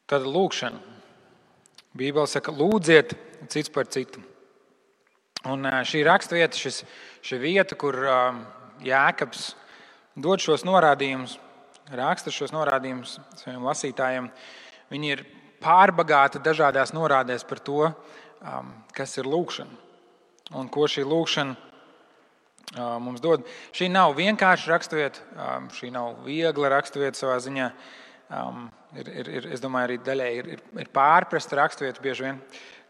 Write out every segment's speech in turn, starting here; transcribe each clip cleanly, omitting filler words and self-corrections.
Tad lūkšana. Bībele saka, lūdziet cits par citu. Un šī raksturvieta, šī vieta, kur Jēkabs dod šos norādījumus, raksta šos norādījumus saviem lasītājiem, viņi ir pārbagāti dažādās norādēs par to, kas ir lūkšana un ko šī lūkšana mums dod. Šī nav vienkārša raksturvieta, šī nav viegla raksturvieta savā ziņā. Es domāju, arī daļēji ir pārprasta raksturvieta bieži vien,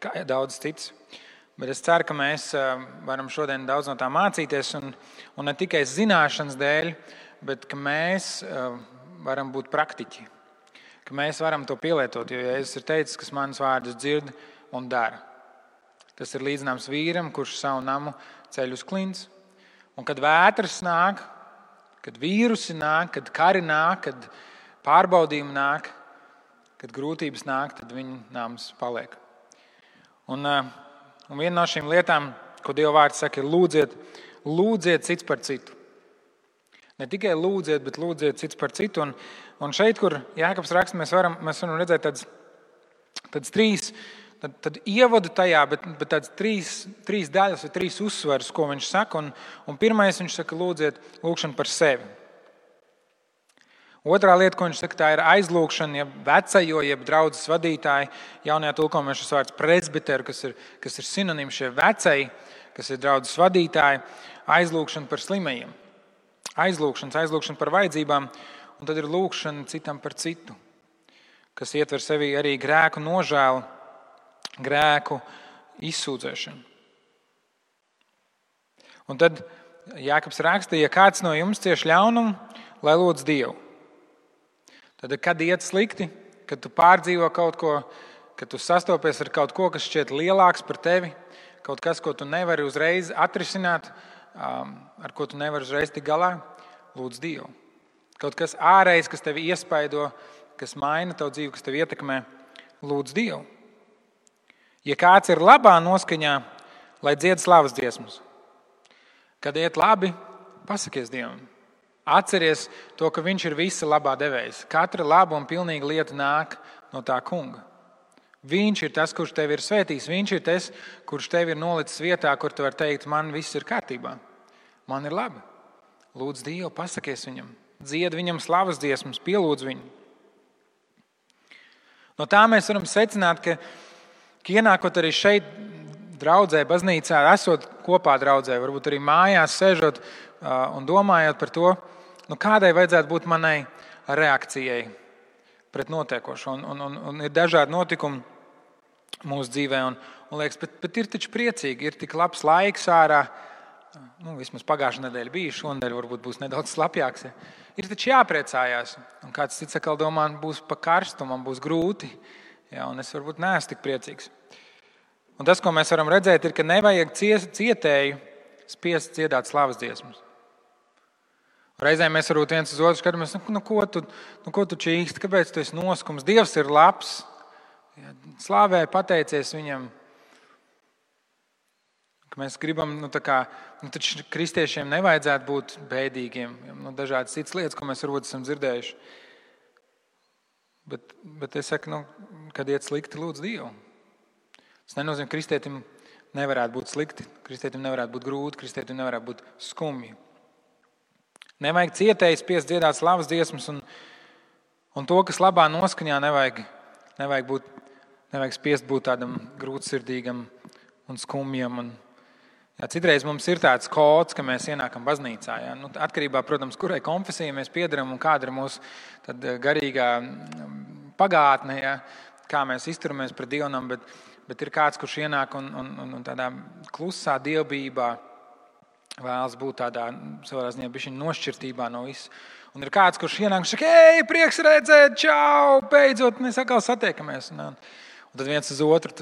kā daudz cits. Bet es ceru, ka mēs varam šodien daudz no tā mācīties, un ne tikai zināšanas dēļ, bet ka mēs varam būt praktiķi, ka mēs varam to pielietot, jo Jēzus ir teicis, kas manas vārdus dzird un dara. Tas ir līdzināms vīram, kurš savu namu ceļ uz klints. Un kad vētras nāk, kad vīrusi nāk, kad kari nāk, kad pārbaudījumi nāk, kad grūtības nāk, tad viņa nams paliek. Un viena no šīm lietām, ko Dieva vārds saka, ir lūdziet cits par citu. Ne tikai lūdziet, bet lūdziet cits par citu. Un šeit, kur Jēkabs raksta, mēs varam redzēt tādas tad ievadu tajā, bet tādas trīs daļas vai trīs uzsvarus, ko viņš saka. Un pirmais viņš saka, lūdziet lūkšanu par sevi. Otrā lieta, ko viņš saka, tā ir aizlūkšana, jeb vecajo, jeb draudzes vadītāji. Jaunajā tulkojumā šis vārds presbiteru, kas ir sinonīms šie vecai, kas ir draudzes vadītāji. Aizlūkšana par slimajiem. Aizlūkšana par vajadzībām. Un tad ir lūkšana citam par citu, kas ietver sevī arī grēku nožēlu, grēku izsūdzēšanu. Un tad Jēkabs raksta, ja kāds no jums cieš ļaunumu, lai lūdz Dievu. Tad, kad iet slikti, kad tu pārdzīvo kaut ko, kad tu sastopies ar kaut ko, kas šķiet lielāks par tevi, kaut kas, ko tu nevari uzreiz atrisināt, ar ko tu nevari uzreiz tikt galā, lūdz Dievu. Kaut kas ārējs, kas tevi iespaido, kas maina tavu dzīvi, kas tevi ietekmē, lūdz Dievu. Ja kāds ir labā noskaņā, lai dzied slavas dziesmas. Kad iet labi, pasakies Dievam. Atceries to, ka viņš ir visa labā devējs. Katra laba un pilnīga lieta nāk no tā kunga. Viņš ir tas, kurš tevi ir svētījis. Viņš ir tas, kurš tevi ir nolicis vietā, kur tu vari teikt, man viss ir kārtībā. Man ir labi. Lūdz Dievu, pasakies viņam. Dzied viņam slavas dziesmas, pielūdz viņu. No tā mēs varam secināt, ka ienākot arī šeit draudzē, baznīcā, esot kopā draudzē, varbūt arī mājās sēžot un domājot par to, kādai vajadzētu būt manai reakcijai pret notiekošo. Un ir dažādi notikumi mūsu dzīvē, un liekas, bet ir taču priecīgi, ir tik labs laiks ārā. Vismaz pagājušā nedēļa bija, šonadēļ varbūt būs nedaudz slapjāks. Ja. Ir taču jāpriecājās. Un kāds cits atkal domā, būs pa karstu, man būs grūti. Ja, un es varbūt neesmu tik priecīgs. Un tas, ko mēs varam redzēt, ir, ka nevajag cietēju spiest dziedāt slavas dziesmas. Reizēm mēs varbūt viens uz otru skatāmies, ko tu čīksti, kāpēc tu esi noskums? Dievs ir labs, ja, slāvē, pateicies viņam. Ka mēs gribam, taču kristiešiem nevajadzētu būt bēdīgiem. Dažādas citas lietas, ko mēs varbūt esam dzirdējuši. Bet es saku, kad iet slikti, lūdz Dievu. Tas nenozīmē, ka kristietim nevarētu būt slikti, kristietim nevarētu būt grūti, kristietim nevarētu būt skumji. Nevajag cietēji spiest dziedāt slavas dziesmas, un to, kas labā noskaņā, nevajag spiest būt tādam grūtsirdīgam un skumjam. Citreiz mums ir tāds kods, ka mēs ienākam baznīcā. Ja? Atkarībā, protams, kurai konfesijai mēs piedaram un kāda ir mūsu garīgā pagātne, ja? Kā mēs izturamies pret Dievam, bet ir kāds, kurš ienāk un tādā klusā dievbijībā vēlas būt tādā savā ziņā bišķiņ nošķirtībā no visu. Un ir kāds, kurš ienāk un saka, prieks redzēt, čau, beidzot, mēs atkal satiekamies. Un tad viens uz otru,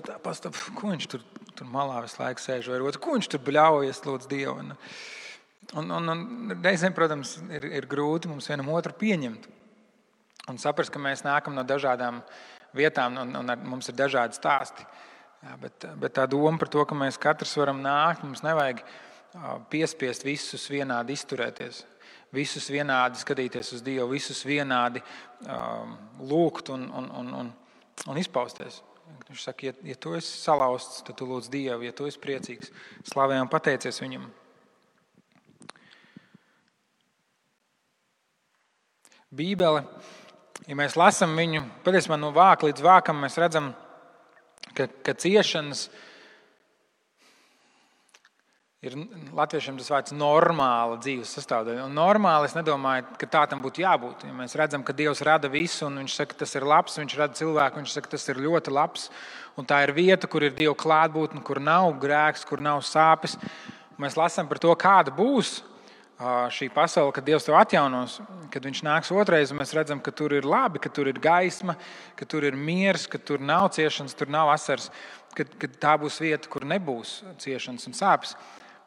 ko viņš tur malā visu laiku sēž, vai otru, ko viņš tur bļaujas, lūdz Dievu. Un reizēm, protams, ir grūti mums vienam otru pieņemt. Un saprast, ka mēs nākam no dažādām vietām un mums ir dažādi stāsti. Jā, bet tā doma par to, ka mēs katrs varam nākt, mums nevajag piespiest visus vienādi izturēties, visus vienādi skatīties uz Dievu, visus vienādi lūgt un un izpausties. Viņš saka, ja tu esi salauzts, tad tu lūdz Dievu, ja tu esi priecīgs, slavē un pateicies Viņam. Bībele, ja mēs lasām viņu, patiesībā no vāka līdz vākam, mēs redzam, ka ciešanas ir latviešiem tas vārds normāla dzīves sastāvdaļa. Un normāli es nedomāju, ka tā tam būtu jābūt. Ja mēs redzam, ka Dievs rada visu, un Viņš saka, tas ir labs, Viņš rada cilvēku, Viņš saka, tas ir ļoti labs. Un tā ir vieta, kur ir Dieva klātbūtne, kur nav grēks, kur nav sāpes. Un mēs lasām par to, kāda būs šī pasaule, kad Dievs to atjaunos, kad Viņš nāks otrais, un mēs redzam, ka tur ir labi, ka tur ir gaisma, ka tur ir miers, ka tur nav ciešanas, tur nav asaras, ka tā būs vieta, kur nebūs ciešanas un sāpes.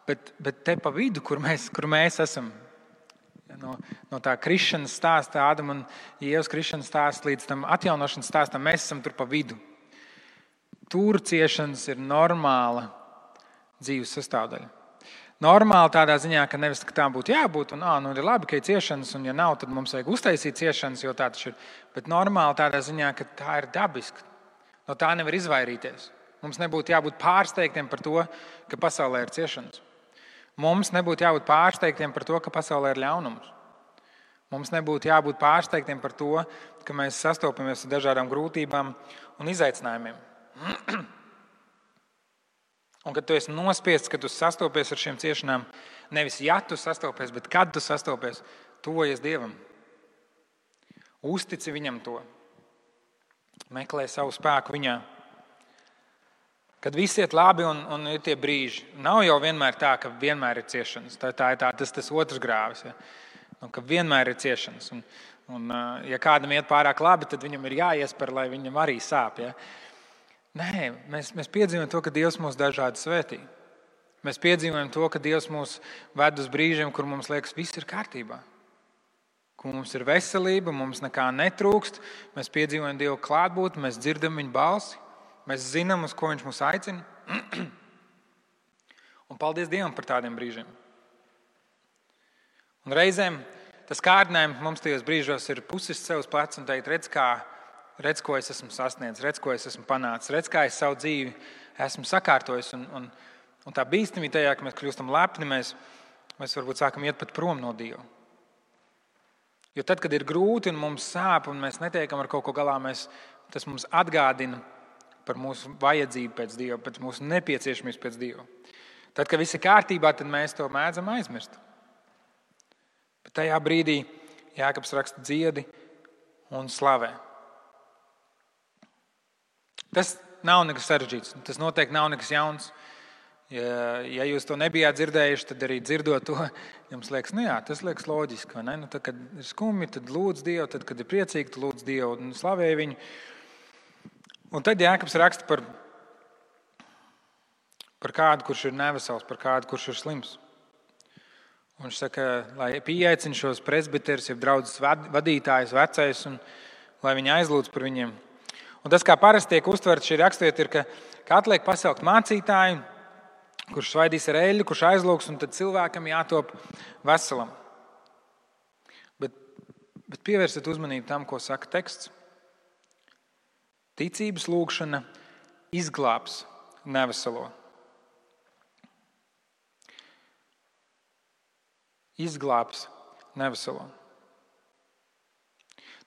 Bet te pa vidu, kur mēs esam, no tā krišanas stāsta, Ādama un Ievas krišanas stāsta līdz tam atjaunošanas stāstam, mēs esam tur pa vidu. Tur ciešanas ir normāla dzīves sastāvdaļa. Normāli tādā ziņā, ka nevis tā būtu jābūt, un ir labi, ka ir ciešanas, un ja nav, tad mums vajag uztaisīt ciešanas, jo tā taču ir. Bet normāli tādā ziņā, ka tā ir dabiska. No tā nevar izvairīties. Mums nebūtu jābūt pārsteigtiem par to, ka pasaulē ir ciešanas. Mums nebūtu jābūt pārsteigtiem par to, ka pasaulē ir ļaunums. Mums nebūtu jābūt pārsteigtiem par to, ka mēs sastopamies ar dažādām grūtībām un izaicinājumiem. Un kad tu esi nospiests, kad tu sastopies ar šīm ciešanām, nevis ja tu sastopies, bet kad tu sastopies, tuvojies Dievam. Uztici Viņam to. Meklē savu spēku Viņā. Kad viss iet labi un ir tie brīži, nav jau vienmēr tā, ka vienmēr ir ciešanas. Tā ir tas otrs grāvis, ja? Ka vienmēr ir ciešanas. Un, ja kādam iet pārāk labi, tad viņam ir jāiesper, lai viņam arī sāp. Ja? Nē, mēs piedzīvojam to, ka Dievs mūs dažādi svētī. Mēs piedzīvojam to, ka Dievs mūs ved uz brīžiem, kur mums liekas, viss ir kārtībā. Kur mums ir veselība, mums nekā netrūkst. Mēs piedzīvojam Dievu klātbūtni, mēs dzirdam Viņa balsi. Mēs zinām, uz ko Viņš mūs aicina. Un paldies Dievam par tādiem brīžiem. Un reizēm tas kārdinājums mums tajos brīžos ir pusis sev uz pleca un teikt, redz, ko es esmu sasniedzis, redz, ko es esmu panācis, redz, kā es savu dzīvi esmu sakārtojis. Un tā bīstamība tajā, ka mēs kļūstam lepni, mēs varbūt sākam iet pat prom no Dieva. Jo tad, kad ir grūti un mums sāp un mēs netiekam ar kaut ko galā, tas mums atgādina par mūsu vajadzību pēc Dieva, pēc mūsu nepieciešamības pēc Dieva. Tad, kad viss ir kārtībā, tad mēs to mēdzam aizmirst. Bet tajā brīdī Jākabs raksta dziedi un slavē. Tas nav nekas sarežģīts, tas noteikti nav nekas jauns. Ja jūs to nebijāt dzirdējuši, tad arī dzirdot to, jums liekas, tas liekas loģiski. Vai ne? Tad, kad ir skumji, tad lūdz Dievu, tad, kad ir priecīgi, tad lūdz Dievu un slavē Viņu. Un tad Jākabs raksta par kādu, kurš ir nevesels, par kādu, kurš ir slims. Un viņš saka, lai pieaicina šos presbiterus, jeb draudzes vadītājus, vecais, un lai viņi aizlūdz par viņiem. Un tas, kā parasti tiek uztverts šī raksturvieta, ir, ka atliek pasaukt mācītāju, kurš svaidīs ar eļļu, kurš aizlūgs, un tad cilvēkam jātop veselam. Bet pievērsiet uzmanību tam, ko saka teksts. Ticības lūgšana izglābs neveselo. Izglābs neveselo.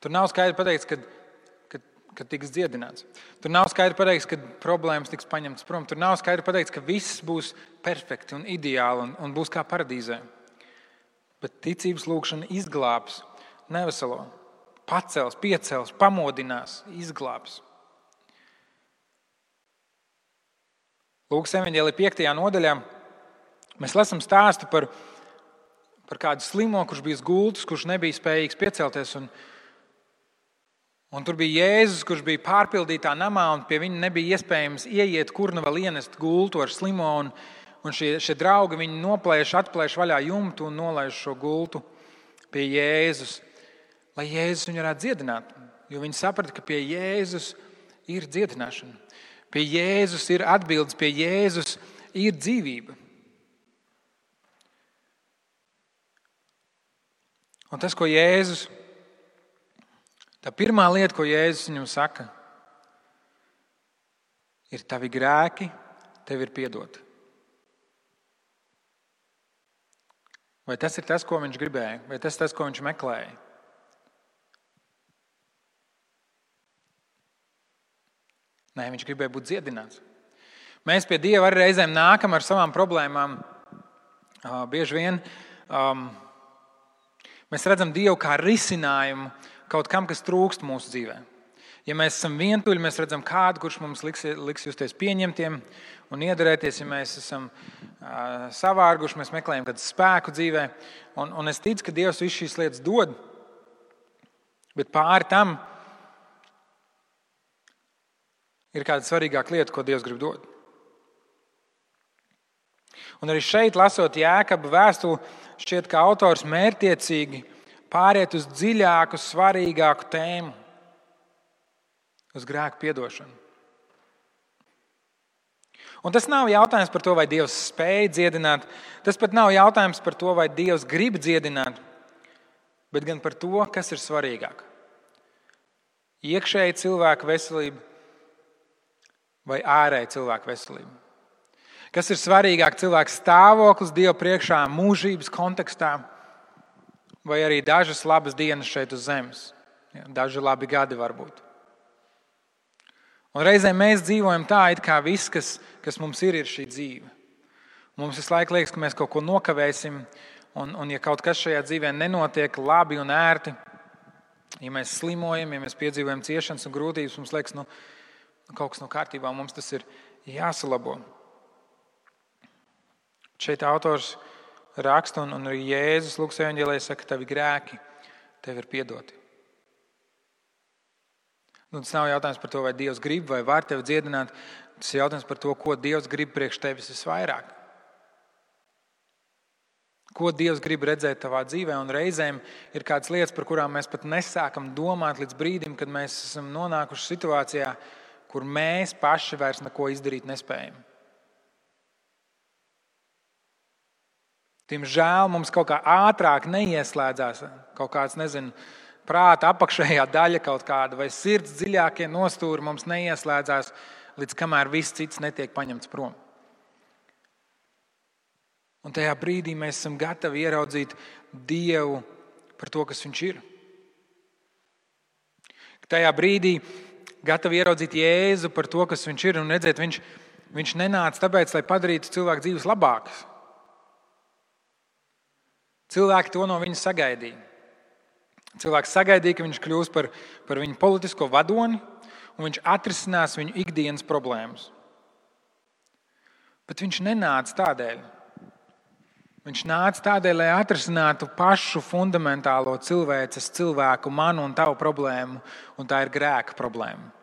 Tur nav skaidri pateikts, ka tiks dziedināts. Tur nav skaidri pateikts, ka problēmas tiks paņemtas prom. Tur nav skaidri pateikts, ka viss būs perfekti un ideāli un būs kā paradīzē. Bet ticības lūgšana izglābs neveselo. Pacels, piecels, pamodinās, izglābs. Lūkas evaņģēlija 5. nodaļā mēs lasām stāstu par kādu slimo, kurš bija gultus, kurš nebija spējīgs piecelties. Un tur bija Jēzus, kurš bija pārpildītā namā, un pie viņa nebija iespējams ieiet, kur nu vēl ienest gultu ar slimo. Un šie draugi viņu atplēš vaļā jumtu un nolaiž šo gultu pie Jēzus, lai Jēzus viņu varētu dziedināt. Jo viņi saprata, ka pie Jēzus ir dziedināšana. Pie Jēzus ir atbildes, pie Jēzus ir dzīvība. Un tas, ko Jēzus, tā pirmā lieta, ko Jēzus viņam saka, ir tavi grēki, tev ir piedoti. Vai tas ir tas, ko viņš gribēja? Vai tas ir tas, ko viņš meklēja? Nē, viņš gribēja būt dziedināts. Mēs pie Dieva arī reizēm nākam ar savām problēmām. Bieži vien mēs redzam Dievu kā risinājumu kaut kam, kas trūkst mūsu dzīvē. Ja mēs esam vientuļi, mēs redzam kādu, kurš mums liks justies pieņemtiem un iederēties. Ja mēs esam savārguši, mēs meklējam kādu spēku dzīvē. Un es ticu, ka Dievs visu šīs lietas dod, bet pāri tam ir kāda svarīgāka lieta, ko Dievs grib dot. Un arī šeit, lasot Jēkaba vēstuli, šķiet, ka autors mērķtiecīgi pāriet uz dziļāku, svarīgāku tēmu, uz grēku piedošanu. Un tas nav jautājums par to, vai Dievs spēj dziedināt, tas pat nav jautājums par to, vai Dievs grib dziedināt, bet gan par to, kas ir svarīgāk. Iekšēji cilvēka veselība vai ārēji cilvēka veselība. Kas ir svarīgāk, cilvēka stāvoklis Dieva priekšā mūžības kontekstā vai arī dažas labas dienas šeit uz zemes. Daži labi gadi varbūt. Un reizēm mēs dzīvojam tā, it kā viss, kas mums ir šī dzīve. Mums visu laiku liekas, ka mēs kaut ko nokavēsim, un ja kaut kas šajā dzīvē nenotiek labi un ērti, ja mēs slimojam, ja mēs piedzīvojam ciešanas un grūtības, mums liekas, kaut kas nav kārtībā, mums tas ir jāsalabo. Šeit autors raksta, un arī Jēzus Lukas evaņģēlijā saka, ka tavi grēki tev ir piedoti. Tas nav jautājums par to, vai Dievs grib vai var tevi dziedināt. Tas ir jautājums par to, ko Dievs grib priekš tevis visvairāk. Ko Dievs grib redzēt tavā dzīvē. Un reizēm ir kādas lietas, par kurām mēs pat nesākam domāt līdz brīdim, kad mēs esam nonākuši situācijā, kur mēs paši vairs neko izdarīt nespējam. Diemžēl mums kaut kā ātrāk neieslēdzās kaut kāds, prāta apakšējā daļa kaut kāda vai sirds dziļākie nostūri mums neieslēdzās, līdz kamēr viss cits netiek paņemts prom. Un tajā brīdī mēs esam gatavi ieraudzīt Dievu par to, kas Viņš ir. Tajā brīdī gatavi ieraudzīt Jēzu par to, kas Viņš ir, un redzēt, Viņš nenāca tāpēc, lai padarītu cilvēku dzīves labākas. Cilvēki to no Viņa sagaidīja. Cilvēks sagaidīja, ka Viņš kļūs par viņu politisko vadoni, un Viņš atrisinās viņu ikdienas problēmas. Bet Viņš nenāca tādēļ. Viņš nāca tādēļ, lai atrisinātu pašu fundamentālo cilvēku, manu un tavu problēmu, un tā ir grēka problēma.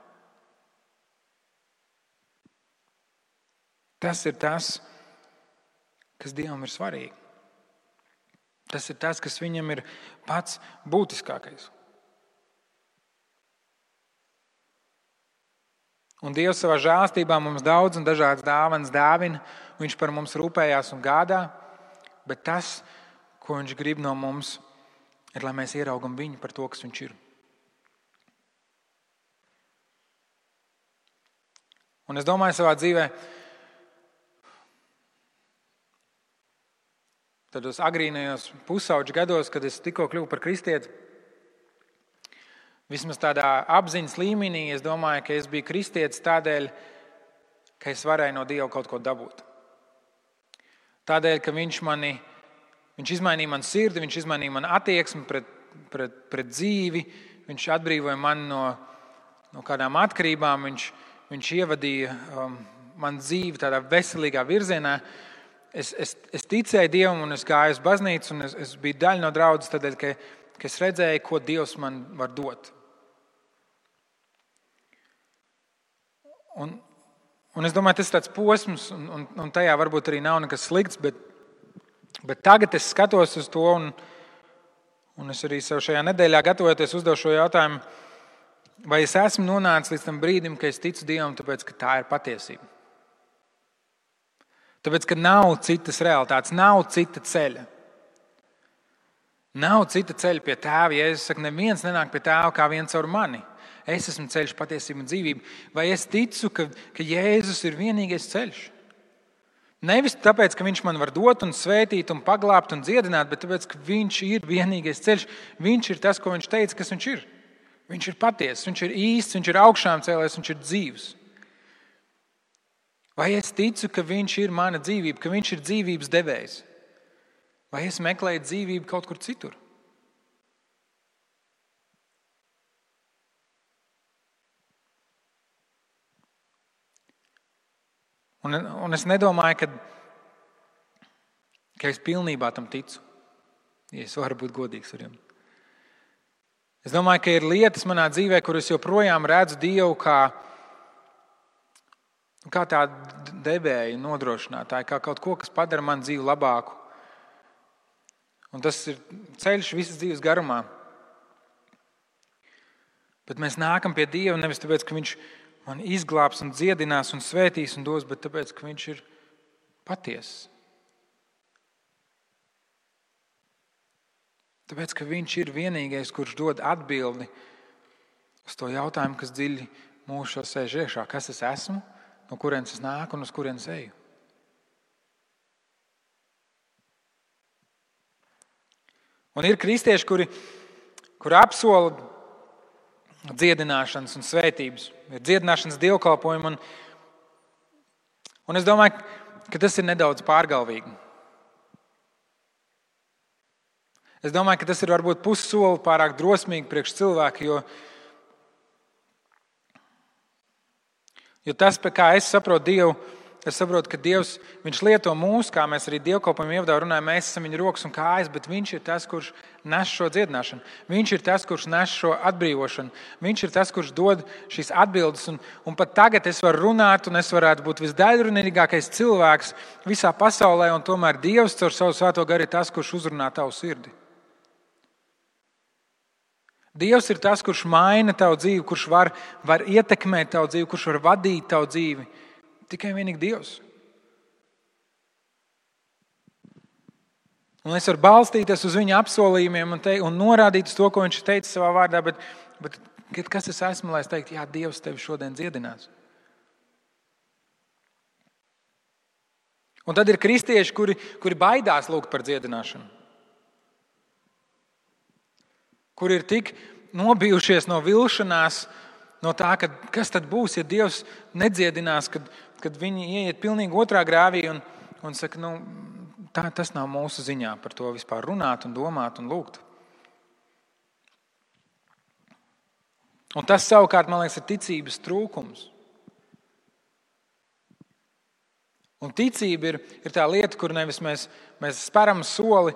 Tas ir tas, kas Dievam ir svarīgi. Tas ir tas, kas Viņam ir pats būtiskākais. Un Dievs savā žēlstībā mums daudz un dažādas dāvanas dāvina. Viņš par mums rūpējās un gādā, bet tas, ko Viņš grib no mums, ir, lai mēs ieraugam Viņu par to, kas Viņš ir. Un es domāju savā dzīvē, tādos agrīnajos pusauģu gados, kad es tikko kļuvu par kristieti, vismaz tādā apziņas līmenī, es domāju, ka es biju kristietis tādēļ, ka es varēju no Dieva kaut ko dabūt. Tādēļ, ka Viņš izmainīja manu sirdi, Viņš izmainīja manu attieksmi pret dzīvi, Viņš atbrīvoja mani no kādām atkarībām, Viņš ievadīja manu dzīvi tādā veselīgā virzienā. Es ticēju Dievam un es gāju uz baznīcu un es biju daļa no draudzes tādēļ, ka es redzēju, ko Dievs man var dot. Un es domāju, tas ir tāds posms un tajā varbūt arī nav nekas slikts, bet tagad es skatos uz to un es arī sev šajā nedēļā gatavojoties uzdevu šo jautājumu, vai es esmu nonācis līdz tam brīdim, ka es ticu Dievam, tāpēc, ka tā ir patiesība. Tāpēc, ka nav citas realitātes, nav cita ceļa. Nav cita ceļa pie Tēva. Jēzus saka, neviens nenāk pie Tēva kā viens caur mani. Es esmu ceļš, patiesība un dzīvība. Vai es ticu, ka Jēzus ir vienīgais ceļš? Nevis tāpēc, ka viņš man var dot un svētīt un paglābt un dziedināt, bet tāpēc, ka viņš ir vienīgais ceļš. Viņš ir tas, ko viņš teica, kas viņš ir. Viņš ir patiess, viņš ir īsts, viņš ir augšām cēlējis, viņš ir dzīvs. Vai es ticu, ka viņš ir mana dzīvība, ka viņš ir dzīvības devējs? Vai es meklēju dzīvību kaut kur citur? Un es nedomāju, ka es pilnībā tam ticu, ja es varu būt godīgs ar jums. Es domāju, ka ir lietas manā dzīvē, kur es joprojām redzu Dievu kā tādu devēju nodrošinātāju, kā kaut ko, kas padara manu dzīvi labāku. Un tas ir ceļš visas dzīves garumā. Bet mēs nākam pie Dieva nevis tāpēc, ka viņš man izglābs un dziedinās un svētīs un dos, bet tāpēc, ka viņš ir patiess. Tāpēc, ka viņš ir vienīgais, kurš dod atbildi uz to jautājumu, kas dziļi mūsu sēž iekšā. Kas es esmu, no kurienes es nāku un uz kurienes eju? Un ir kristieši, kuri apsola dziedināšanas un svētības, ir dziedināšanas dievkalpojumi. Un es domāju, ka tas ir nedaudz pārgalvīgi. Es domāju, ka tas ir varbūt pussoli pārāk drosmīgi priekš cilvēku, jo tas, kā es saprotu Dievu, es saprotu, ka Dievs, viņš lieto mūs, kā mēs arī dievkalpojumu ievadā runājam, mēs esam viņa rokas un kājas, bet viņš ir tas, kurš nes šo dziedināšanu. Viņš ir tas, kurš nes šo atbrīvošanu. Viņš ir tas, kurš dod šīs atbildes. Un pat tagad es varu runāt, un es varētu būt visdaļrunīgākais cilvēks visā pasaulē, un tomēr Dievs caur savu svēto garu ir tas, kurš uzrunā tavu sirdi. Dievs ir tas, kurš maina tavu dzīvi, kurš var ietekmēt tavu dzīvi, kurš var vadīt tavu dzīvi. Tikai vienīgi Dievs. Un es varu balstīties uz viņa apsolījumiem un norādīt uz to, ko viņš teica savā vārdā, bet kas es esmu, lai es teiktu, jā, Dievs tevi šodien dziedinās. Un tad ir kristieši, kuri baidās lūgt par dziedināšanu. Kuri ir tik nobijušies no vilšanās, no tā, kas tad būs, ja Dievs nedziedinās, kad viņi ieiet pilnīgi otrā grāvī un saka, tas nav mūsu ziņā par to vispār runāt un domāt un lūgt. Un tas savukārt, man liekas, ir ticības trūkums. Un ticība ir tā lieta, kur nevis mēs speram soli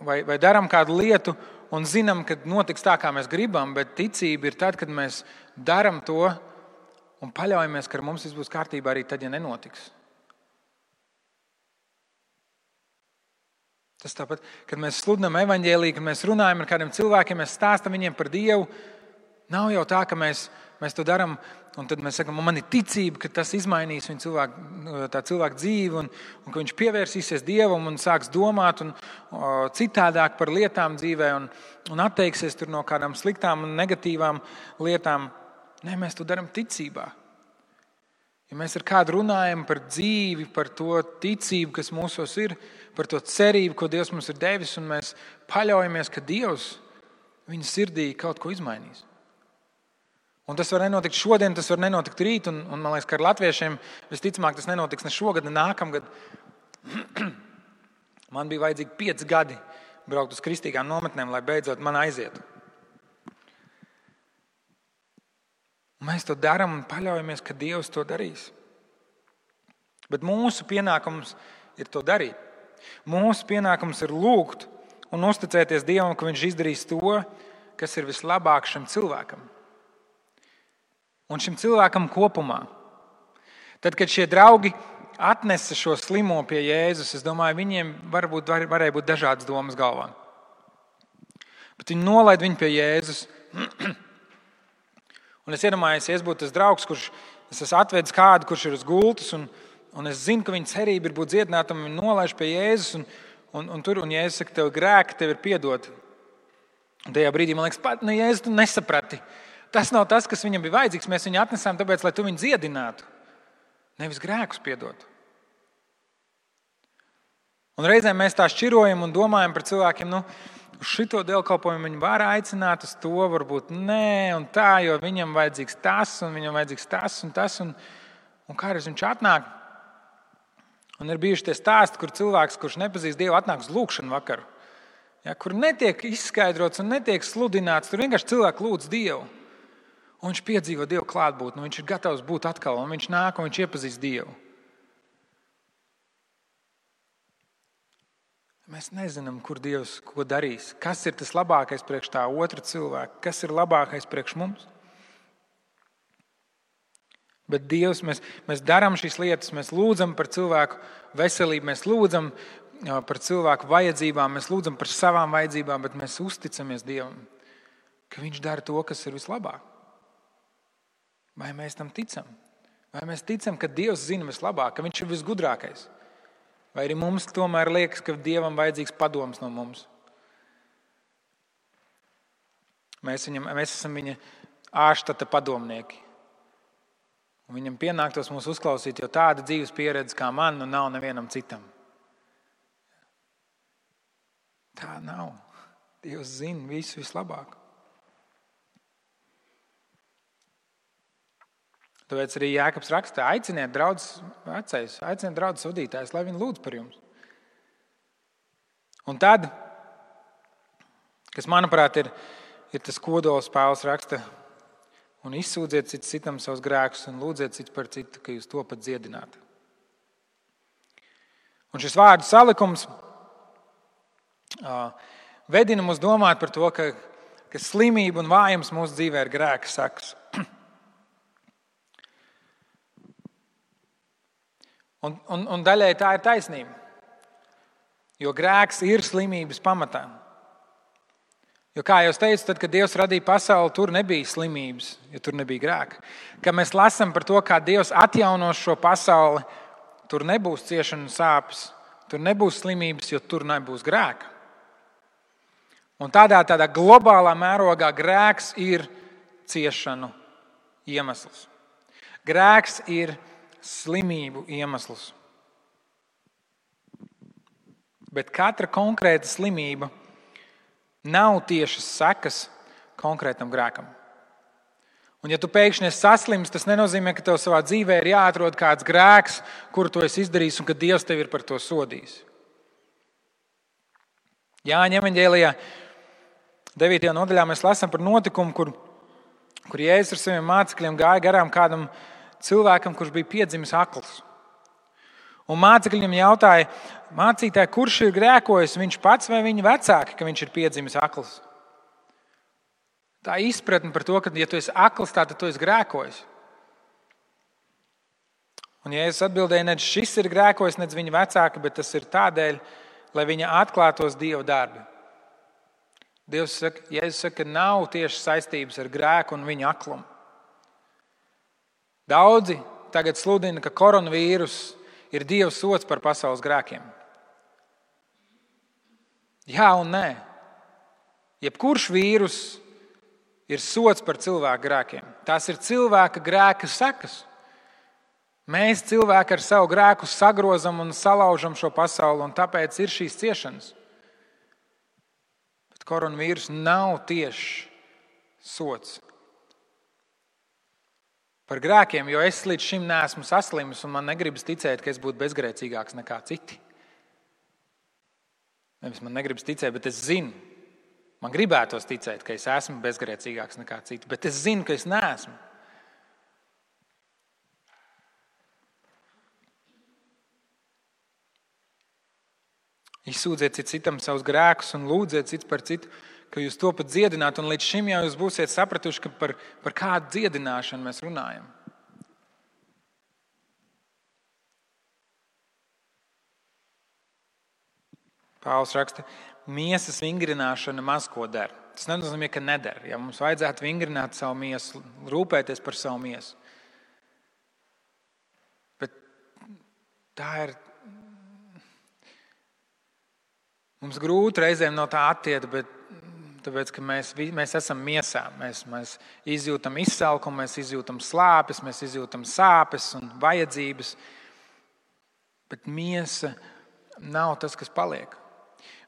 vai darām kādu lietu un zinām, ka notiks tā, kā mēs gribam, bet ticība ir tad, kad mēs darām to un paļaujamies, ka ar mums viss būs kārtībā arī tad, ja nenotiks. Tas tāpat, kad mēs sludinām evaņģēliju, kad mēs runājam ar kādiem cilvēkiem, mēs stāstam viņiem par Dievu, nav jau tā, ka mēs to darām, un tad mēs sakam, man ir ticība, ka tas izmainīs tā cilvēka dzīvi, un ka viņš pievērsīsies Dievam un sāks domāt un citādāk par lietām dzīvē un atteiksies tur no kādām sliktām un negatīvām lietām. Nē, mēs to darām ticībā. Ja mēs ar kādu runājam par dzīvi, par to ticību, kas mūsos ir, par to cerību, ko Dievs mums ir devis, un mēs paļaujamies, ka Dievs viņa sirdī kaut ko izmainīs. Un tas var nenotikt šodien, tas var nenotikt rīt, un man liekas, ka ar latviešiem visticamāk tas nenotiks ne šogad, ne nākamgad. Man bija vajadzīgi 5 gadi braukt uz kristīgām nometnēm, lai beidzot man aizietu. Mēs to darām un paļaujamies, ka Dievs to darīs. Bet mūsu pienākums ir to darīt. Mūsu pienākums ir lūgt un uzticēties Dievam, ka viņš izdarīs to, kas ir vislabāk šim cilvēkam. Un šim cilvēkam kopumā. Tad, kad šie draugi atnesa šo slimo pie Jēzus, es domāju, viņiem varēja būt dažādas domas galvā. Bet viņi nolaida viņu pie Jēzus. Un es iedomājos, ja es būtu tas draugs, kurš es esmu atvedis kādu, kurš ir uz gultas, un es zinu, ka viņa cerība ir būt dziedinātam, un viņa nolaiž pie Jēzus, un Jēzus saka, tev grēki, tev ir piedoti. Un tajā brīdī man liekas, Jēzus, tu nesaprati. tas nav tas, kas viņam bija vajadzīgs. Mēs viņu atnesām tāpēc, lai tu viņu dziedinātu, nevis grēkus piedotu. Un reizēm mēs tā šķirojam un domājam par cilvēkiem, uz šito dievkalpojumu viņi var aicināt, uz to varbūt nē, un tā, jo viņam vajadzīgs tas, un viņam vajadzīgs tas, un tas, un kādreiz viņš atnāk. Un ir bijuši tie stāsti, kur cilvēks, kurš nepazīst Dievu, atnāk uz lūgšanu vakaru, kur netiek izskaidrots un netiek sludināts, tur vienkārši cilvēki lūdz Dievu. Un viņš piedzīvo Dievu klātbūtni, viņš ir gatavs būt atkal, un viņš nāk un viņš iepazīst Dievu. Mēs nezinām, kur Dievs ko darīs, kas ir tas labākais priekš tā otra cilvēka, kas ir labākais priekš mums. Bet Dievs, mēs darām šīs lietas, mēs lūdzam par cilvēku veselību, mēs lūdzam par cilvēku vajadzībām, mēs lūdzam par savām vajadzībām, bet mēs uzticamies Dievam, ka Viņš dara to, kas ir vislabāk. Vai mēs tam ticam? Vai mēs ticam, ka Dievs zina vislabāk, ka Viņš ir visgudrākais? Vai arī mums tomēr liekas, ka Dievam vajadzīgs padoms no mums? Mēs esam viņa ārštata padomnieki. Un viņam pienāktos mūs uzklausīt, jo tāda dzīves pieredze kā man nav nevienam citam. Tā nav. Dievs zina visu vislabāk. Tāpēc arī Jākabs raksta, aiciniet draudzes vecais, aiciniet draudzes vadītājus, lai viņi lūdz par jums. Un tad, kas manuprāt ir tas kodols, Pāvils raksta, un izsūdziet citam savus grēkus un lūdziet cits par citu, ka jūs topat dziedināti. Un šis vārdu salikums vedina mūs domāt par to, ka slimība un vājums mūsu dzīvē ir grēka sekas. Un daļai tā ir taisnība, jo grēks ir slimības pamatā. Jo, kā jau teicu, tad, kad Dievs radīja pasauli, tur nebija slimības, jo tur nebija grēka. Kad mēs lasām par to, kā Dievs atjaunos šo pasauli, tur nebūs ciešana un sāpes, tur nebūs slimības, jo tur nebūs grēka. Un tādā globālā mērogā grēks ir ciešanu iemesls. Grēks ir slimību iemesls. Bet katra konkrēta slimība nav tiešas sekas konkrētam grēkam. Un ja tu pēkšņi esi saslims, tas nenozīmē, ka tev savā dzīvē ir jāatrod kāds grēks, kuru tu esi izdarījis un ka Dievs tevi ir par to sodījis. Jāņa evaņģēlijā 9. nodaļā mēs lasām par notikumu, kur Jēzus ar saviem mācekļiem gāja garām kādam cilvēkam, kurš bija piedzimis akls. Un mācekļi viņam jautāja, mācītāji, kurš ir grēkojis, viņš pats vai viņa vecāki, ka viņš ir piedzimis akls? Tā izpratne par to, ka, ja tu esi akls, tad tu esi grēkojis. Un Jēzus atbildēja, ne šis ir grēkojis, ne viņa vecāki, bet tas ir tādēļ, lai viņa atklātos Dieva darbi. Jēzus saka, ka nav tieši saistības ar grēku un viņa aklumu. Daudzi tagad sludina, ka koronavīrus ir Dieva sods par pasaules grēkiem. Jā un nē. Jebkurš vīrus ir sods par cilvēku grēkiem. Tās ir cilvēka grēka sekas. Mēs cilvēki ar savu grēku sagrozam un salaužam šo pasauli, un tāpēc ir šīs ciešanas. Bet koronavīrus nav tieši sods par grēkiem, jo es līdz šim neesmu saslimis un man negribas ticēt, ka es būtu bezgrēcīgāks nekā citi. Nevis man negribas ticēt, bet es zinu. Man gribētos ticēt, ka es esmu bezgrēcīgāks nekā citi, bet es zinu, ka es neesmu. Izsūdziet citam savus grēkus un lūdziet cits par citu, ka jūs to pat dziedināt, un līdz šim jau jūs būsiet sapratuši, ka par kādu dziedināšanu mēs runājam. Pāvils raksta, miesas vingrināšana maz ko dara. Tas nenozīmē, ka nedara. Ja mums vajadzētu vingrināt savu miesu, rūpēties par savu miesu. Bet tā ir. Mums grūti reizēm no tā attiekt, bet Tāpēc, ka mēs esam miesā. Mēs izjūtam izsalkumu, mēs izjūtam slāpes, mēs izjūtam sāpes un vajadzības. Bet miesa nav tas, kas paliek.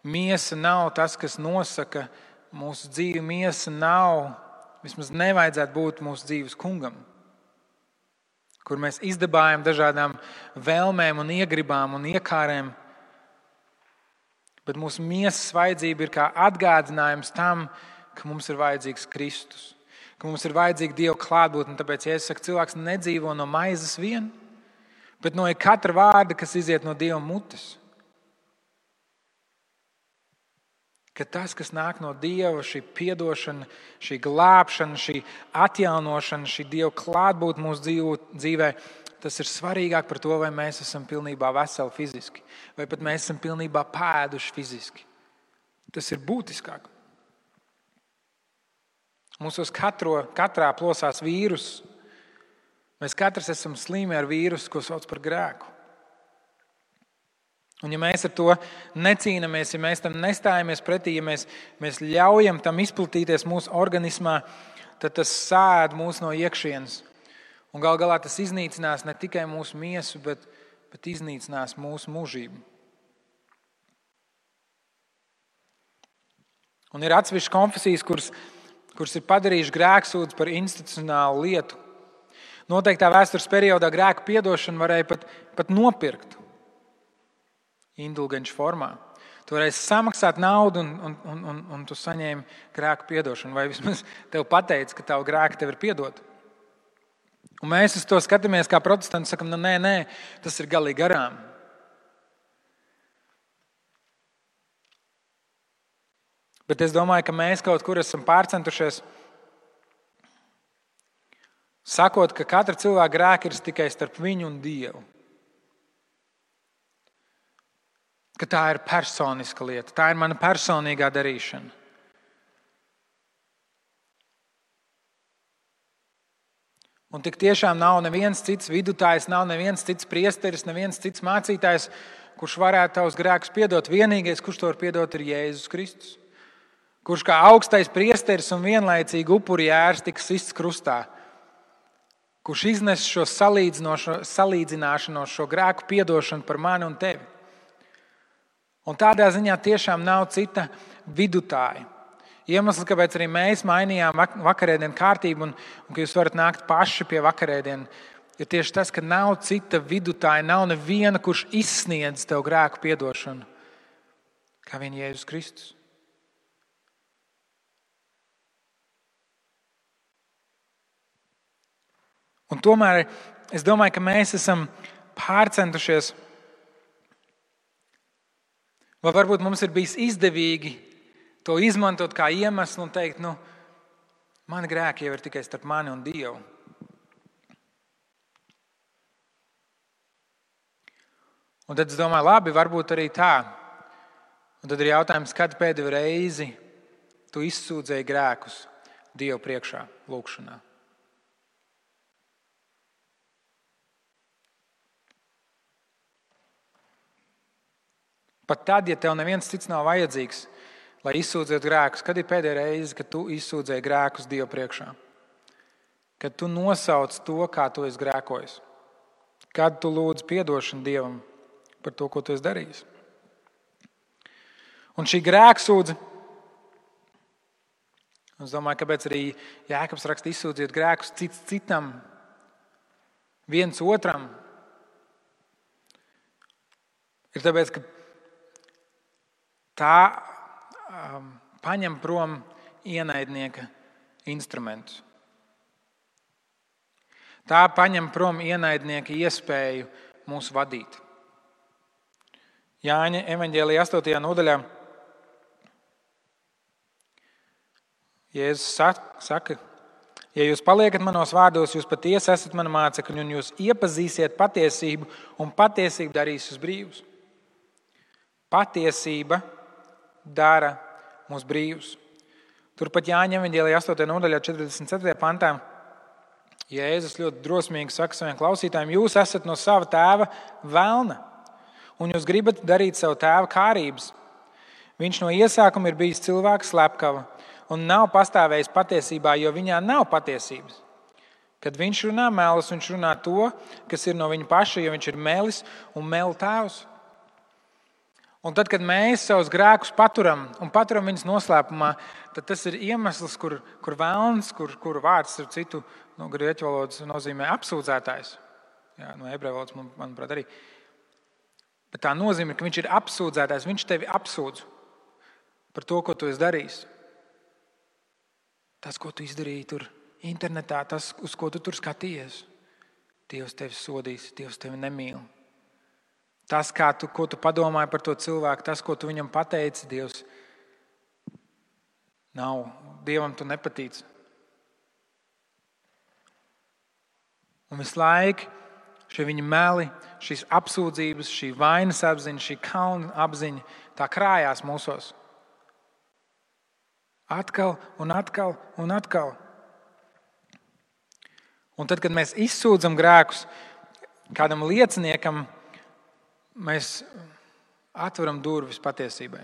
Miesa nav tas, kas nosaka mūsu dzīvi. Miesa nav, vismaz nevajadzētu būt mūsu dzīves kungam, kur mēs izdabājam dažādām vēlmēm un iegribām un iekārēm. Bet mūsu miesas vajadzība ir kā atgādinājums tam, ka mums ir vajadzīgs Kristus, ka mums ir vajadzīga Dieva klātbūtne. Tāpēc, ja es saku, cilvēks nedzīvo no maizes vien, bet no katra vārda, kas iziet no Dieva mutes. Ka tas, kas nāk no Dieva, šī piedošana, šī glābšana, šī atjaunošana, šī Dieva klātbūtne mūsu dzīvē, tas ir svarīgāk par to, vai mēs esam pilnībā veseli fiziski, vai pat mēs esam pilnībā pēduši fiziski. Tas ir būtiskāk. Mūsos katrā plosās vīrus. Mēs katrs esam slimi ar vīrusu, ko sauc par grēku. Un ja mēs ar to necīnamies, ja mēs tam nestājamies pretī, ja mēs ļaujam tam izplatīties mūsu organismā, tad tas sēd mūs no iekšienes. Un gal galā tas iznīcinās ne tikai mūsu miesu, bet iznīcinās mūsu mūžību. Un ir atsevišķas konfesijas, kuras ir padarījuši grēksūdzi par institucionālu lietu. Noteiktā vēstures periodā grēku piedošanu varēja pat nopirkt indulgenču formā. Tu varēji samaksāt naudu un tu saņēmi grēku piedošanu. Vai vismaz tev pateica, ka tavu grēku tev ir piedot. Un mēs uz to skatāmies kā protestanti, sakam, nē, tas ir galīgi garām. Bet es domāju, ka mēs kaut kur esam pārcentušies, sakot, ka katra cilvēka grēka ir tikai starp viņu un Dievu. Ka tā ir personiska lieta, tā ir mana personīgā darīšana. Un tik tiešām nav neviens cits vidutājs, nav neviens cits priesteris, neviens cits mācītājs, kurš varētu tavus grēkus piedot. Vienīgais, kurš to var piedot, ir Jēzus Kristus. Kurš kā augstais priesteris un vienlaicīgi upuri jērs tika sists krustā. Kurš iznes šo salīdzināšanos, šo grēku piedošanu par mani un tevi. Un tādā ziņā tiešām nav cita vidutāja. Iemesls, kāpēc arī mēs mainījām vakarēdienu kārtību un ka jūs varat nākt paši pie vakarēdienu, ir tieši tas, ka nav cita vidutāja, nav neviena, kurš izsniedz tev grēku piedošanu, kā vien Jēzus Kristus. Un tomēr es domāju, ka mēs esam pārcentušies, vai varbūt mums ir bijis izdevīgi to izmantot kā iemeslu un teikt, mani grēki jau ir tikai starp mani un Dievu. Un tad es domāju, labi, varbūt arī tā. Un tad ir jautājums, kad pēdējo reizi tu izsūdzēji grēkus Dievu priekšā, lūgšanā. Pat tad, ja tev neviens cits nav vajadzīgs, lai izsūdzētu grēkus, kad ir pēdējā reize, kad tu izsūdzēji grēkus Dievu priekšā? Kad tu nosauc to, kā tu esi grēkojis? Kad tu lūdz piedošanu Dievam par to, ko tu esi darījis? Un šī grēksūdze, es domāju, kāpēc arī Jēkabs raksta izsūdziet grēkus cits citam, viens otram, ir tāpēc, ka tā paņem prom ienaidnieka instrumentus. Tā paņem prom ienaidnieka iespēju mūs vadīt. Jāņa evaņģēlijā 8. nodaļā Jēzus saka, ja jūs paliekat manos vārdos, jūs patiesi esat mani mācekļi un jūs iepazīsiet patiesību un patiesība darīs jūs brīvus. Patiesība dara mūs brīvus. Turpat Jāņa evaņģēlijā 8. nodaļā 44. pantā Jēzus ļoti drosmīgi saka saviem klausītājiem, jūs esat no sava tēva velna un jūs gribat darīt savu tēva kārības. Viņš no iesākuma ir bijis cilvēks slepkava un nav pastāvējis patiesībā, jo viņā nav patiesības. Kad viņš runā melus, viņš runā to, kas ir no viņa paša, jo viņš ir melis un melu tēvs. Un tad, kad mēs savus grēkus paturam un paturam viņus noslēpumā, tad tas ir iemesls, kur velns, kur vārds ar citu no grieķu valodas nozīmē apsūdzētājs. Jā, no ebreju valodas, manuprāt, arī. Bet tā nozīmē, ka viņš ir apsūdzētājs, viņš tevi apsūdz par to, ko tu esi darījis. Tas, ko tu izdarīji tur internetā, tas, uz ko tu tur skatījies. Dievs tevi sodīs, Dievs tevi nemīl. Tas, ko tu padomāji par to cilvēku, tas, ko tu viņam pateici, Dievs nav. Dievam tu nepatīc. Un visu laiku šie viņa meli, šīs apsūdzības, šī vainas apziņa, šī kauna apziņa, tā krājās mūsos. Atkal un atkal un atkal. Un tad, kad mēs izsūdzam grēkus kādam lieciniekam, mēs atveram durvis patiesībai.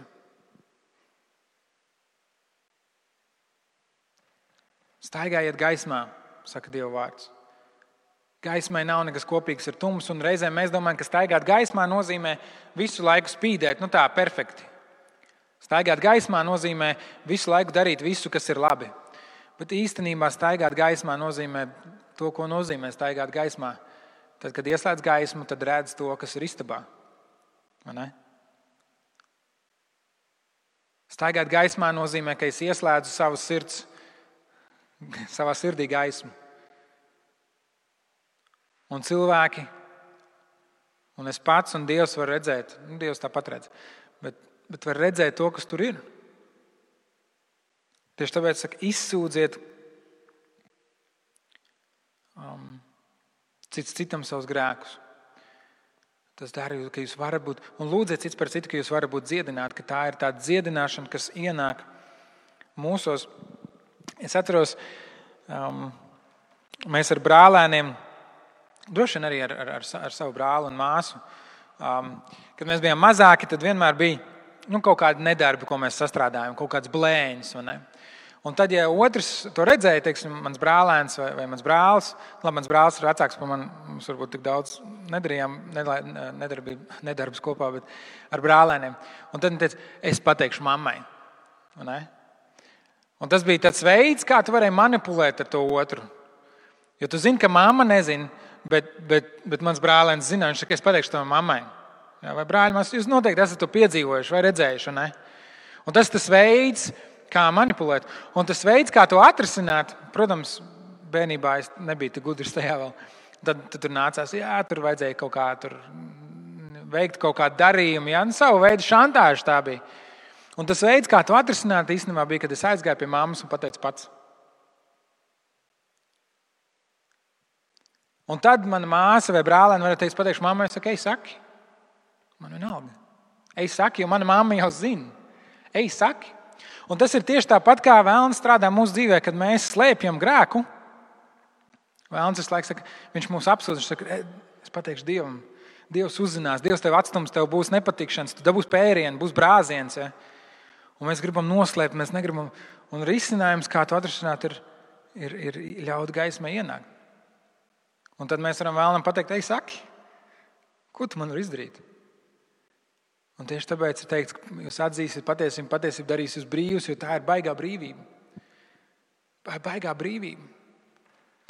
Staigājiet gaismā, saka Dieva vārds. Gaismai nav nekas kopīgs ar tumsu, un reizēm mēs domājam, ka staigāt gaismā nozīmē visu laiku spīdēt, tā perfekti. Staigāt gaismā nozīmē visu laiku darīt visu, kas ir labi. Bet īstenībā staigāt gaismā nozīmē to, ko nozīmē staigāt gaismā. Tad, kad ieslēdz gaismu, tad redz to, kas ir istabā. Vai ne? Staigāt gaismā nozīmē, ka es ieslēdzu savā sirdī gaismu. Un cilvēki, un es pats un Dievs var redzēt, Dievs tāpat redz, bet var redzēt to, kas tur ir. Tieši tāpēc saka, izsūdziet cits citam savus grēkus. Tas dara, ka jūs varat būt, un lūdziet cits par citu, ka jūs varat būt dziedināti, ka tā ir tāda dziedināšana, kas ienāk mūsos. Es atceros, mēs ar brālēniem, droši vien arī ar savu brāli un māsu, kad mēs bijām mazāki, tad vienmēr bija kaut kādi nedarbi, ko mēs sastrādājam, kaut kāds blēņas. Un tad, ja otrs to redzēja, teiksim, mans brālēns vai mans brālis, mans brālis ir vecāks par mani, mums varbūt tik daudz nedarījām nedarbus kopā, bet ar brālēniem. Un tad viņš teica, es pateikšu mammai. Un tas bija tāds veids, kā tu varēji manipulēt ar to otru. Jo tu zini, ka mamma nezina, bet mans brālēns zina, viņš saka, es pateikšu to mammai. Jā, vai brāļi, jūs noteikti esat to piedzīvojuši vai redzējuši. Ne? Un tas veids, kā manipulēt. Un tas veids, kā to atrisināt, protams, bērnībā es nebiju tik gudrs tajā vēl. Tad tur nācās, tur vajadzēja kaut kā tur veikt kaut kādu darījumu. Savu veidu šantāžu tā bija. Un tas veids, kā to atrisināt, īstenībā bija, kad es aizgāju pie mammas un pateicu pats. Un tad mana māsa vai brālēni varēja teikt, pateikšu mammai, es saku, ej saki. Man vienalga. Ej saki, jo mana mamma jau zina. Ej saki. Un tas ir tieši tāpat, kā velns strādā mūsu dzīvē, kad mēs slēpjam grēku. Velns visu laiku saka, viņš mūs apsūdz, viņš saka, es pateikšu Dievam. Dievs uzzinās, Dievs tev atstums, tev būs nepatikšanas, tu dabūs pērieni, būs brāziens. Ja? Un mēs gribam noslēpt, mēs negribam. Un risinājums, kā to atrisināt, ir ļaut gaismai ienākt. Un tad mēs varam vēlam pateikt, ej saki, ko tu man var izdarīt? Un tieši tāpēc ir teikts, ka jūs atzīsiet patiesību darīs jūs brīvus, jo tā ir baigā brīvība. Baigā brīvība.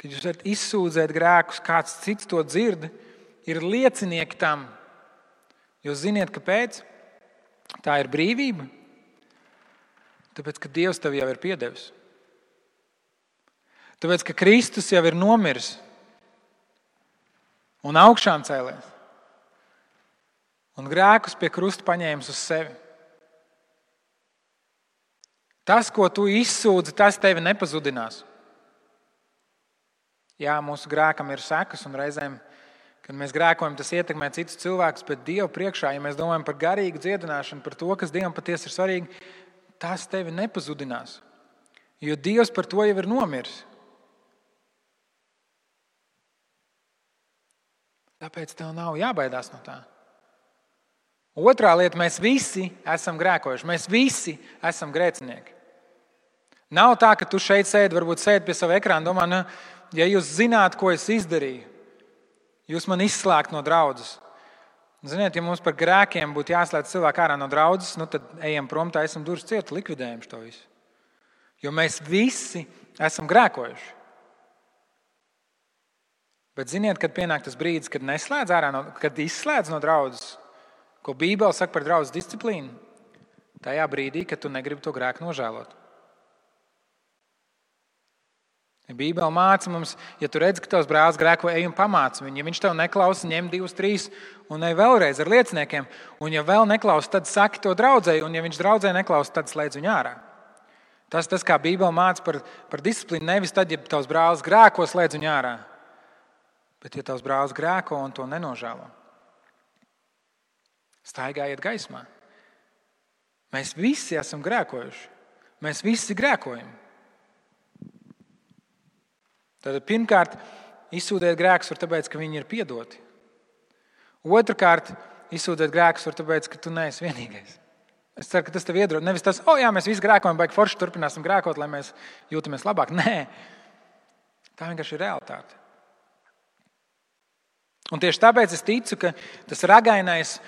Kad jūs varat izsūdzēt grēkus, kāds cits to dzird, ir liecinieki tam. Jūs ziniet, kāpēc? Tā ir brīvība. Tāpēc, ka Dievs tev jau ir piedevis. Tāpēc, ka Kristus jau ir nomiris un augšām cēlies. Un grēkus pie krusta paņēmis uz sevi. Tas, ko tu izsūdzi, tas tevi nepazudinās. Jā, mūsu grēkam ir sekas, un reizēm, kad mēs grēkojam, tas ietekmē citus cilvēkus, bet Dievu priekšā, ja mēs domājam par garīgu dziedināšanu, par to, kas Dievam patiesi ir svarīgi, tas tevi nepazudinās. Jo Dievs par to jau ir nomiris. Tāpēc tev nav jābaidās no tā. Otrā lieta, mēs visi esam grēkojuši. Mēs visi esam grēcinieki. Nav tā, ka tu šeit sēdi, varbūt sēdi pie sava ekrāna, domā, nu, ja jūs zināt, ko es izdarīju, jūs man izslēgt no draudzes. Ziniet, ja mums par grēkiem būtu jāslēdz cilvēku ārā no draudzes, nu tad ejam prom, taisam durvis ciet, likvidējam šo visu. Jo mēs visi esam grēkojuši. Bet ziniet, kad pienāk tas brīdis, kad neslēdz ārā, kad izslēdz no draudzes, ko Bībele saka par draudzes disciplīnu, tajā brīdī, kad tu negribi to grēku nožēlot. Bībele māca mums, ja tu redzi, ka tavs brālis grēko, ej un pamāci viņu. Ja viņš tev neklausa, ņem 2, 3 un ej vēlreiz ar lieciniekiem. Un ja vēl neklausa, tad saki to draudzēji. Un ja viņš draudzēji neklausa, tad slēdz viņu ārā. Tas kā Bībele māca par disciplīnu, nevis tad, ja tavs brālis grēko, slēdz viņu ārā. Bet ja tavs brālis grēko un to nenožēlo, staigājiet gaismā. Mēs visi esam grēkojuši. Mēs visi grēkojam. Tad pirmkārt, izsūdēt grēkus var tāpēc, ka viņi ir piedoti. Otrkārt, izsūdēt grēkus var tāpēc, ka tu neesi vienīgais. Es ceru, ka tas tev iedrošina. Nevis tas, jā, mēs visi grēkojam, baigi forši turpināsim grēkot, lai mēs jūtamies labāk. Nē, tā vienkārši ir realitāte. Un tieši tāpēc es ticu, ka tas ragainais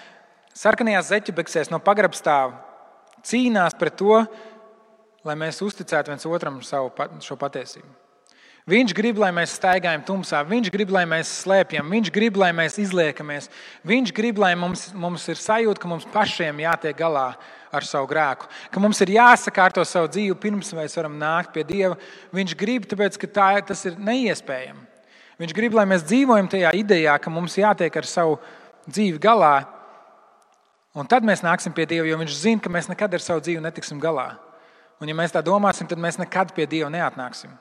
sarkanajās zeķebeksēs no pagrabstāva cīnās pret to, lai mēs uzticētu viens otram šo patiesību. Viņš grib, lai mēs staigājam tumsā, viņš grib, lai mēs slēpjam, viņš grib, lai mēs izliekamies, viņš grib, lai mums ir sajūta, ka mums pašiem jātiek galā ar savu grēku, ka mums ir jāsakārto savu dzīvi pirms mēs varam nākt pie Dieva. Viņš grib, tāpēc, ka tas ir neiespējami. Viņš grib, lai mēs dzīvojam tajā idejā, ka mums jātiek ar savu dzīvi galā, un tad mēs nāksim pie Dieva, jo viņš zina, ka mēs nekad ar savu dzīvi netiksim galā. Un ja mēs tā domāsim, tad mēs nekad pie Dieva neatnāksim.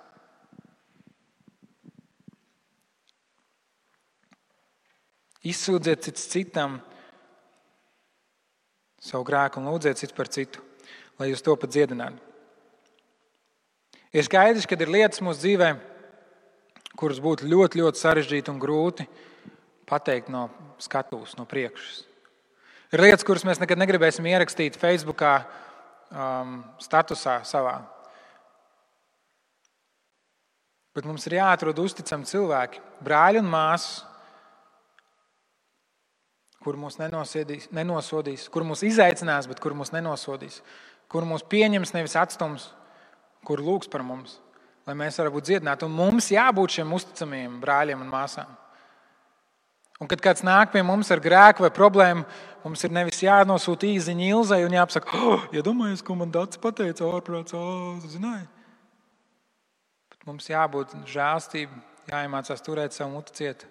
Izsūdziet cits citam savu grēku un lūdziet cits par citu, lai jūs to pat dziedinātu. Ir skaidrs, ka ir lietas mūsu dzīvē, kuras būtu ļoti, ļoti sarežģīti un grūti pateikt no skatuves, no priekšas. Ir lietas, kuras mēs nekad negribēsim ierakstīt Facebookā, statusā savā. Bet mums ir jāatrod uzticami cilvēki, brāļi un māsas, kur mūs nenosodīs, kur mūs izaicinās, bet kur mūs nenosodīs, kur mūs pieņems, nevis atstums, kur lūgs par mums, lai mēs varam būt dziedināti. Un mums jābūt šiem uzticamiem brāļiem un māsām. Un kad kāds nāk pie mums ar grēku vai problēmu, mums ir nevis jānosūta īziņa Ilzai un jāpasaka, iedomājies, ko man Dats pateica, ārprāts, zināji. Bet mums jābūt žēlstība, jāiemācās turēt savu muti ciet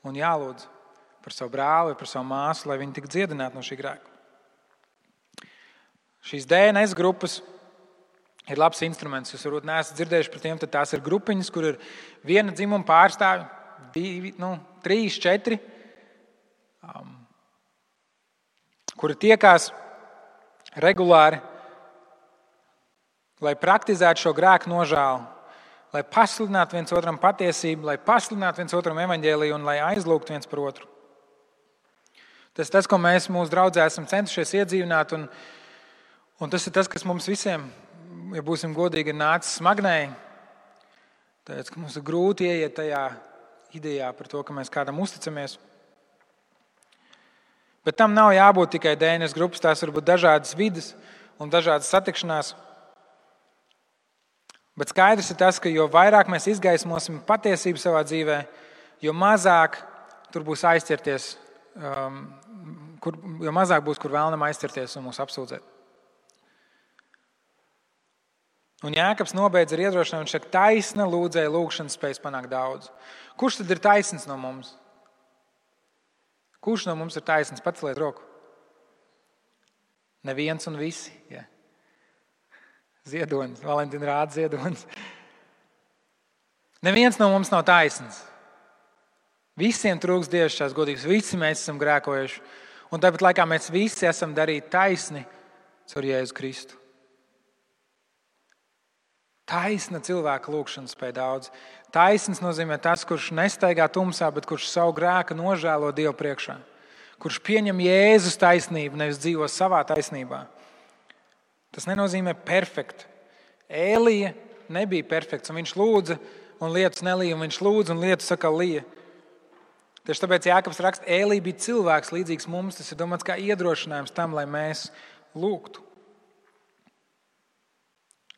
un jālūdz par savu brāli, par savu māsu, lai viņi tik dziedinātu no šī grēka. Šīs DNS grupas ir labs instruments. Jūs varbūt neesat dzirdējuši par tiem, tad tās ir grupiņas, kur ir viena dzimuma pārstāvi, 2, 3, 4, kuri tiekās regulāri, lai praktizētu šo grēku nožēlu, lai pasludinātu viens otram patiesību, lai pasludinātu viens otram evaņģēliju un lai aizlūgtu viens par otru. Tas, ko mēs mūsu draudzē esam centušies iedzīvināt, un tas ir tas, kas mums visiem, ja būsim godīgi, ir nācis smagnēji. Tāpēc, ka mums ir grūti ieiet tajā idejā par to, ka mēs kādam uzticamies. Bet tam nav jābūt tikai DNS grupas, tās var būt dažādas vides un dažādas satikšanās. Bet skaidrs ir tas, ka jo vairāk mēs izgaismosim patiesību savā dzīvē, jo mazāk tur būs aizķerties, jo mazāk būs, kur vēlnam aizķerties un mūs apsūdzēt. Un Jākabs nobeidz ar iedrošinājumu, viņš saka, taisna lūdzēja lūgšana spējas panākt daudz. Kurš tad ir taisns no mums? Kurš no mums ir taisns? Paceliet roku. Neviens un visi. Ja. Ziedonis, Valentīna rāda ziedonis. Neviens no mums nav taisns. Visiem trūks dievišķās godības, visi mēs esam grēkojuši. Un tāpat laikā mēs visi esam darīti taisni caur Jēzu Kristu. Taisna cilvēka lūgšana spēj daudz. Taisns nozīmē tas, kurš nestaigā tumsā, bet kurš savu grēku nožēlo Dievu priekšā. Kurš pieņem Jēzus taisnību, nevis dzīvo savā taisnībā. Tas nenozīmē perfekti. Ēlija nebija perfekts, un viņš lūdza, un lietus nelīja, un viņš lūdza, un lietus atkal lija. Tieši tāpēc Jākabs raksta, Ēlija bija cilvēks līdzīgs mums, tas ir domāts kā iedrošinājums tam, lai mēs lūgtu.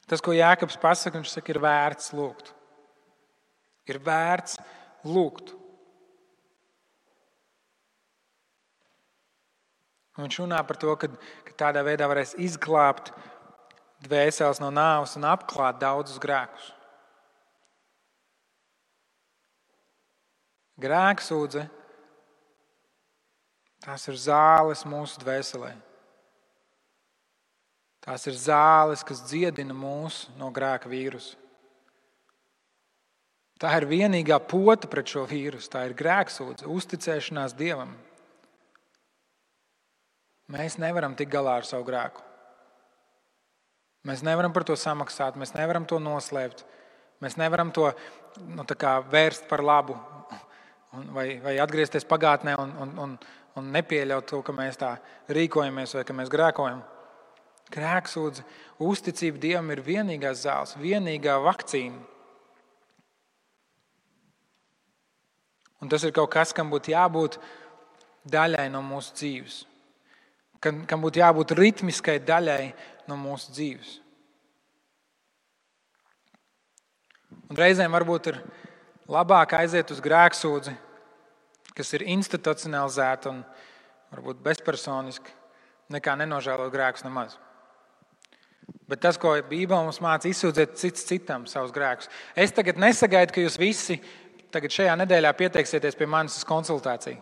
Tas, ko Jākabs pasaka, viņš saka, ir vērts lūgt. Ir vērts lūgt. Un viņš runā par to, ka tādā veidā varēs izglābt dvēseles no nāves un apklāt daudzus grēkus. Grēksūdze, tās ir zāles mūsu dvēselē. Tās ir zāles, kas dziedina mūs no grēka vīrusa. Tā ir vienīgā pota pret šo vīrusu. Tā ir grēksūdze, uzticēšanās Dievam. Mēs nevaram tikt galā ar savu grēku. Mēs nevaram par to samaksāt, mēs nevaram to noslēpt. Mēs nevaram to vērst par labu vai atgriezties pagātnē un nepieļaut to, ka mēs tā rīkojamies vai ka mēs grēkojam. Grēksūdze, uzticība Dievam ir vienīgās zāles, vienīgā vakcīna. Un tas ir kaut kas, kam būtu jābūt daļai no mūsu dzīves. Kam būtu jābūt ritmiskai daļai no mūsu dzīves. Un reizēm varbūt ir labāk aiziet uz grēksūdzi, kas ir institucionalizēta un varbūt bezpersoniska, nekā nenožēlot grēkus nemaz. Bet tas, ko Bībele mums māca, izsūdzēt cits citam savus grēkus. Es tagad nesagaidu, ka jūs visi tagad šajā nedēļā pieteiksieties pie manis uz konsultāciju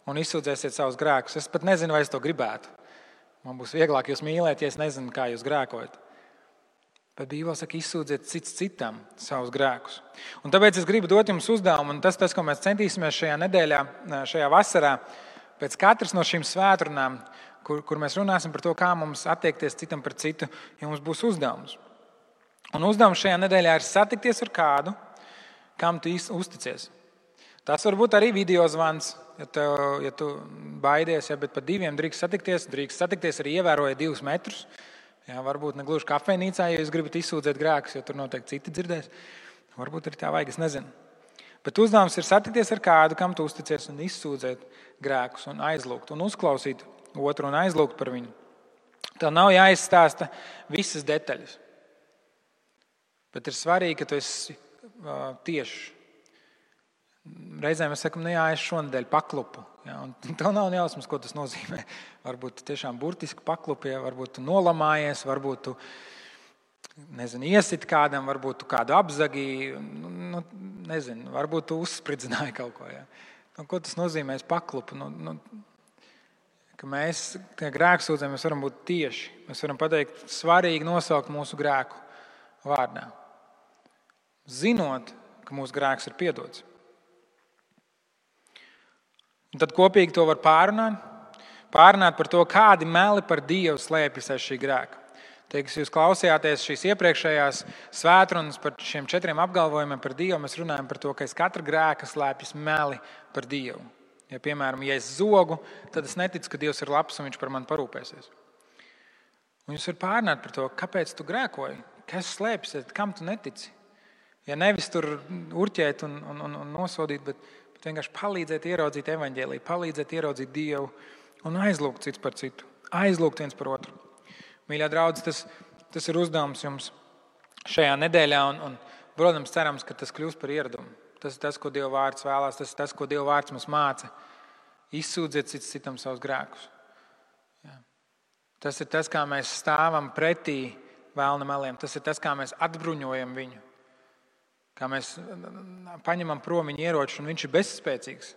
un izsūdzēsiet savus grēkus. Es pat nezinu, vai es to gribētu. Man būs vieglāk jūs mīlēt, ja es nezinu, kā jūs grēkojat. Bet Bībele saka, izsūdziet cits citam savus grēkus. Un tāpēc es gribu dot jums uzdevumu, un tas, ko mēs centīsimies šajā nedēļā, šajā vasarā, pēc katras no šīm svētrunām, kur mēs runāsim par to, kā mums attiekties citam par citu, ja mums būs uzdevums. Un uzdevums šajā nedēļā ir satikties ar kādu, kam tu uzticies. Tas var būt arī video zvans, ja tu baidies, bet par 2 drīkst satikties arī ievērojot 2 metrus. Jā, varbūt ne gluži kafejnīcā, ja jūs gribat izsūdzēt grēkus, jo tur noteikti citi dzirdēs. Varbūt arī tā vajag, es nezinu. Bet uzdevums ir satikties ar kādu, kam tu uzticies, un izsūdzēt grēkus, un aizlūgt, un uzklausīt otru un aizlūgt par viņu. Tev nav jāizstāsta visas detaļas. Bet ir svarīgi, ka tu esi tieši. Reizēm mēs sakam, es šonadēļ paklupu. Ja, un tev nav jausmas, ko tas nozīmē. Varbūt tu tiešām burtiski paklupi, varbūt tu nolamājies, varbūt tu iesit kādam, varbūt tu kādu apzagi, varbūt tu uzspridzināji kaut ko. Ja. Ko tas nozīmē? Es paklupu. Ka mēs, kā grēksūdzē, mēs varam būt tieši. Mēs varam pateikt, svarīgi nosaukt mūsu grēku vārdā. Zinot, ka mūsu grēks ir piedots. Un tad kopīgi to var pārunāt. Pārunāt par to, kādi meli par Dievu slēpjas aiz šī grēka. Teiks, jūs klausījāties šīs iepriekšējās svētrunas par šiem 4 apgalvojumiem par Dievu. Mēs runājam par to, ka aiz katra grēka slēpjas meli par Dievu. Ja, piemēram, ja es zogu, tad es neticu, ka Dievs ir labs un viņš par mani parūpēsies. Un jūs varat pārunāt par to, kāpēc tu grēkoji, kas slēpjas, kam tu netici. Ja nevis tur urķēt un nosodīt, bet vienkārši palīdzēt ieraudzīt evaņģēliju, palīdzēt ieraudzīt Dievu un aizlūgt cits par citu, aizlūgt viens par otru. Mīļā draudz, tas ir uzdevums jums šajā nedēļā un protams, cerams, ka tas kļūs par ieradumu. Tas ir tas, ko Dieva vārds vēlās, tas ir tas, ko Dieva vārds mums māca. Izsūdziet cits citam savus grēkus. Jā. Tas ir tas, kā mēs stāvam pretī vēlna meliem. Tas ir tas, kā mēs atbruņojam viņu. Kā mēs paņemam prom viņa ieroču, un viņš ir bezspēcīgs.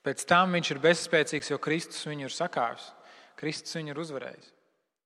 Pēc tam viņš ir bezspēcīgs, jo Kristus viņu ir sakāvis. Kristus viņu ir uzvarējis.